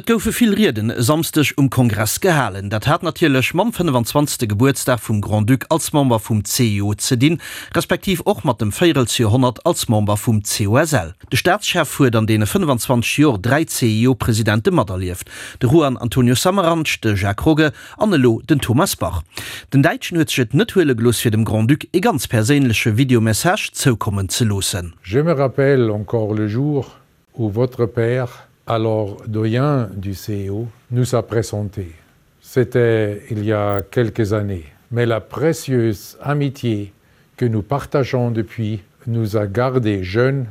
Et goufe vill Rieden e Samsdeg um Kongress gehalen. Dat hat natierlech mam 25. Gebuertsdag vum Grand-Duc als Member vum CIO ze dinn, respektiv och mat dem Véierelsjoerhonnert als Member vum COSL. De Staatschef huet an deene 25 Jor 3 CIO-Presidente materlieft, de Juan Antonio Samaranch, de Jacques Rogge an elo den Thomas Bach. Den Däitschen huet sech et net huele gelooss fir dem Grand-Duc ee ganz perséinleche Videomessage zoukommen ze loossen. Je me rappelle encore le jour où votre père, alors doyen du CEO, nous a présenté. C'était il y a quelques années, mais la précieuse amitié que nous partageons depuis nous a gardés jeunes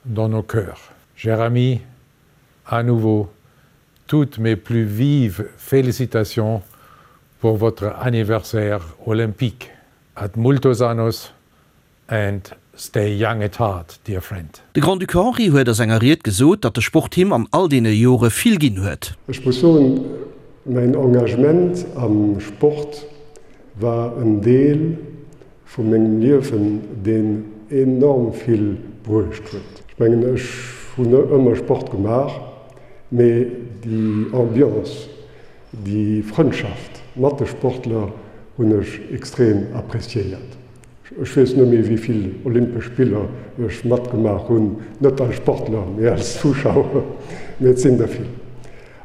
dans nos cœurs. Cher ami, à nouveau, toutes mes plus vives félicitations pour votre anniversaire olympique. Ad multos annos and stay young at heart, dear friend. De Grand-Duc Henri huet a senger Ried gesot, datt de Sport him an all deene Jore vill ginn huet. Ech muss soen, mäin Engagement am Sport war en Deel vu mengem Liewen, deen enorm vill bruecht huet. Ech mengen, ech hunn ëmmer Sport gemaach, mee déi Ambiance, déi Frëndschaft mat de Sportler hunn ech extrem appréciéiert. Ech weess net méi, wéi vill Olympesch Spiller ech matgemaach hunn, net als Sportler, mee als Zuschauer, mee et sinn der vill.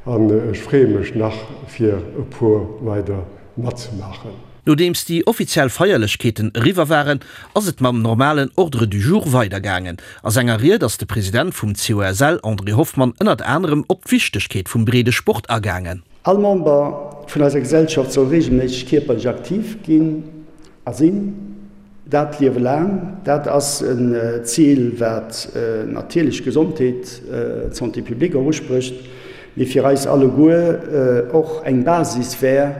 An ech freeë mech nach, fir e puer weider matzemaachen. Nodeems déi offiziell Feierlechkeeten eriwwer waren, ass et mam normalen Ordre du jour weidergaangen. A senger Ried ass de President vum COSL, André Hoffmann, ënnert anerem op d'Wichtegkeet vum breede Sport agaangen. All Member vun eiser Gesellschaft soll regelméisseg kierperlech aktiv ginn a sinn, dat d'Liewe laang. Dat ass en Zil, wat natierlech d'Gesondheet, d'Santé publique och usprécht, mee fir eis alleguer och eng Basis wär,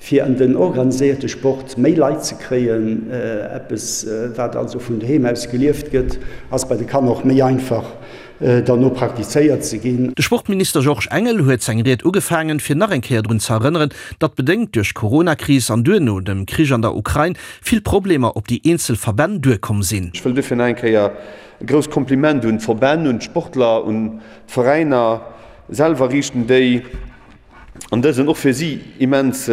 fir an den organiséierte Sport méi Leit ze kréien. Eppes, wat also vun doheem aus gelieft gëtt, ass bei de Kanner och méi einfach derno praktizéiert ze ginn. De Sportminister Georges Engel huet seng Ried ugefaangen, fir nach eng Kéier drun ze erënneren, datt bedéngt duerch d'Corona-Kris an duerno dem Krich an der Ukrain vill Problemer op déi eenzel Verbänn duerkomm sinn. Ech wëll duerfir nach eng Kéier e grousst Kompliment un d'Verbänn, un d'Sportler, un d'Veräiner selwer riichten, déi an dësen och fir si immens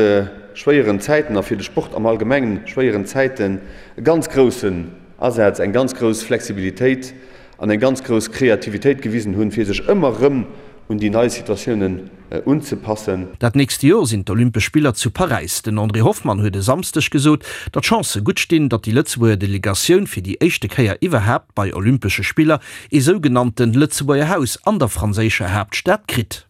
schwéieren Zäiten a fir de Sport am Allgemengen schwéieren Zäiten e ganz groussen Asaz, eng ganz grouss Flexibilitéit an eng ganz grouss Kreativitéit gewisen hunn, fir sech ëmmer erëm un déi nei Situatiounen unzepassen. Dat nächst Jor sinn d'Olympesch Spiller zu Paräis. Den André Hoffmann huet e Samsdeg gesot, datt d'Chancë gutt stinn, datt déi Lëtzebuerger Delegatioun fir déi éischte Kéier iwwerhaapt bei Olympesche Spiller ee sougenannte Lëtzebuerger Haus an der franséischer Haaptstad kritt.